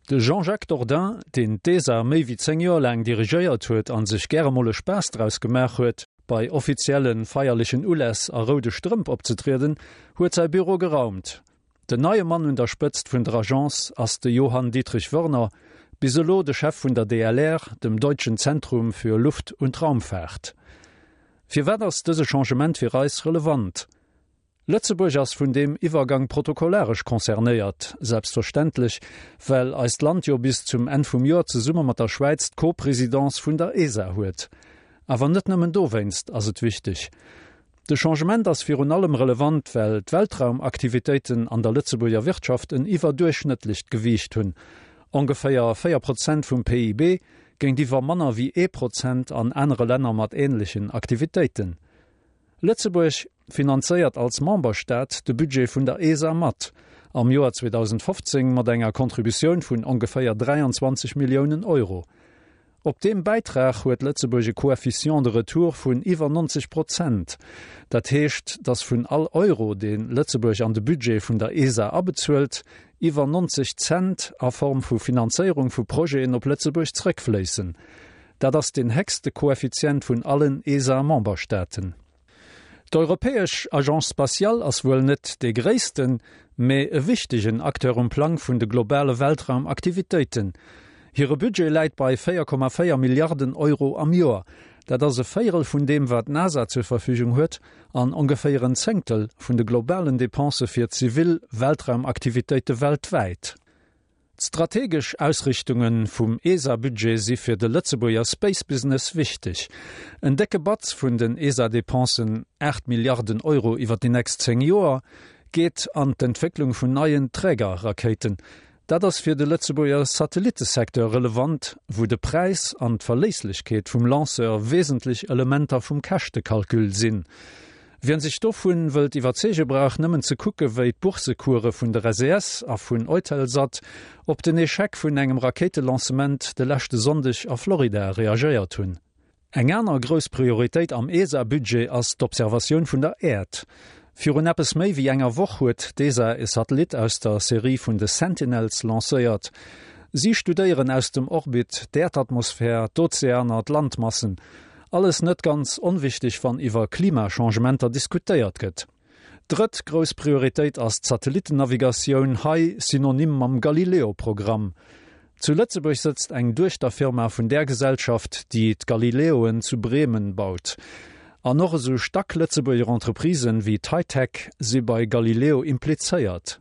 De Jean-Jacques Dordain, deen d'ESA méi wéi 10 Joer laang dirigéiert huet a sech gäre mol e Spaass draus gemaach huet, bei offizielle feierlechen Uläss a roude Strëmp opzetrieden, huet säi Büro geraumt. Den neie Mann un der Spëtzt vun der Agence ass de Johann Dietrich Wörner, bis elo de Chef vun der DLR, dem Deutschen Zentrum für Luft und Raumfahrt. Firwat ass dëse Changement fir eis relevant? Lëtzebuerg ass vun deem Iwwergang protokollaresch concernéiert, selbstverständlech, well eist Land jo bis zum Enn vum Joer zesumme mat der Schwäiz d'Co-Présidence vun der ESA huet. Awer net nëmmen dowéinst ass et wichteg. De Changement ass virun allem relevant, well d'Weltraumaktivitéiten an der Lëtzebuerger Wirtschaft en iwwerduerchschnëttlecht Gewiicht hunn, ongeféier 4 Prozent vum PIB géintiwwer manner wéi ee Prozent an anere Länner mat änlechen Aktivitéiten. Lëtzebuerg finanzéiert als Memberstaat de Budget vun der ESA mat, am Joer 2015 mat enger Contributioun vun ongeféier 23 Milliounen Euro. Op deem Bäitrag huet Lëtzebuerg e Coefficient de retour vun iwwer 90 Prozent. Dat heescht, datt vun all Euro, dee Lëtzebuerg an de Budget vun der ESA abezuelt, iwwer 90 Cent a Form vu Finanzéierung vu Projeten op Lëtzebuerg zrëckfléissen. Dat ass deen héchste Koeffizient vun allen ESA-Memberstaaten. D'Europäesch Agence spatiale ass wuel net dee gréissten, mee e wichtegen Acteur um Plang vun de globale Weltraumaktivitéiten. Hire Budget läit bei 4,4 Milliarden Euro am Joer. Dat ass e Véierel vun deem, wat d'NASA zur Verfügung huet, an ongeféier en Zéngtel vun de globalen Depensë fir zivil Weltraumaktivitéite weltwäit. D'strategesch Ausrichtunge vum ESA-Budget si fir de Lëtzebuerger Space Business wichteg. En décke Batz vun den ESA-Depensen, 8 Milliarden Euro iwwer déi nächst 10 Joer, geet an d'Entwécklung vun neien Trägerrakéiten. Dat ass fir de Lëtzebuerger Satellittesecteur relevant, wou de Präis an d'Verléisslechkeet vum Lanceur wesentlech Elementer vum Käschtekalkül sinn. Wien sech dovun wëllt iwwerzeege brauch nëmmen ze kucke wéi d'Boursecoure vun der SES a vun Eutelsat op den Echec vun engem Rakéitelancement de leschte Sonndeg a Florida reagéiert hunn. Eng aner grouss Prioritéit am ESA-Budget ass d'Observatioun vun der Äerd. Virun eppes méi wéi enger Woch huet d'ESA e Satellit aus der Serie vun de Sentinels lancéiert. Si studéieren aus dem Orbit d'Äerdatmosphär, d'Ozeaner, d'Landmassen. Alles net ganz onwichteg wann iwwer Klimachangementer diskutéiert gëtt. Drëtt grouss Prioritéit ass d'Satellittennavigatioun, hei synonym mam Galileo-Programm. Zu Lëtzebuerg sëtzt eng Duechterfirma vun där Gesellschaft, déi d'Galileoen zu Bremen baut. An och esou stack Lëtzebuerger Entreprisen wéi d'Hightec si bei Galileo implizéiert.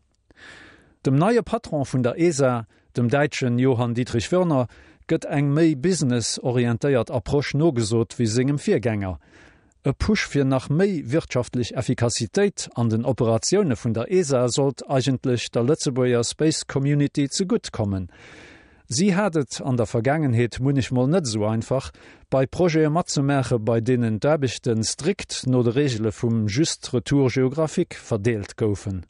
Dem neie Patron vun der ESA, dem Däitschen Johann Dietrich Wörner, gëtt eng méi business-orientéiert Approche nogesot wéi sengem Virgänger. E Push fir nach méi wirtschaftlech Effikassitéit an den Operatioune vun der ESA sollt eigentlech der Lëtzebuerger Space Community zegutt kommen. Si hat et an der Vergaangenheet munnechmol net esou einfach, bei Projete matzemaache bei deenen d'Aarbechte strikt no de Reegele vum juste retour géographique verdeelt goufen.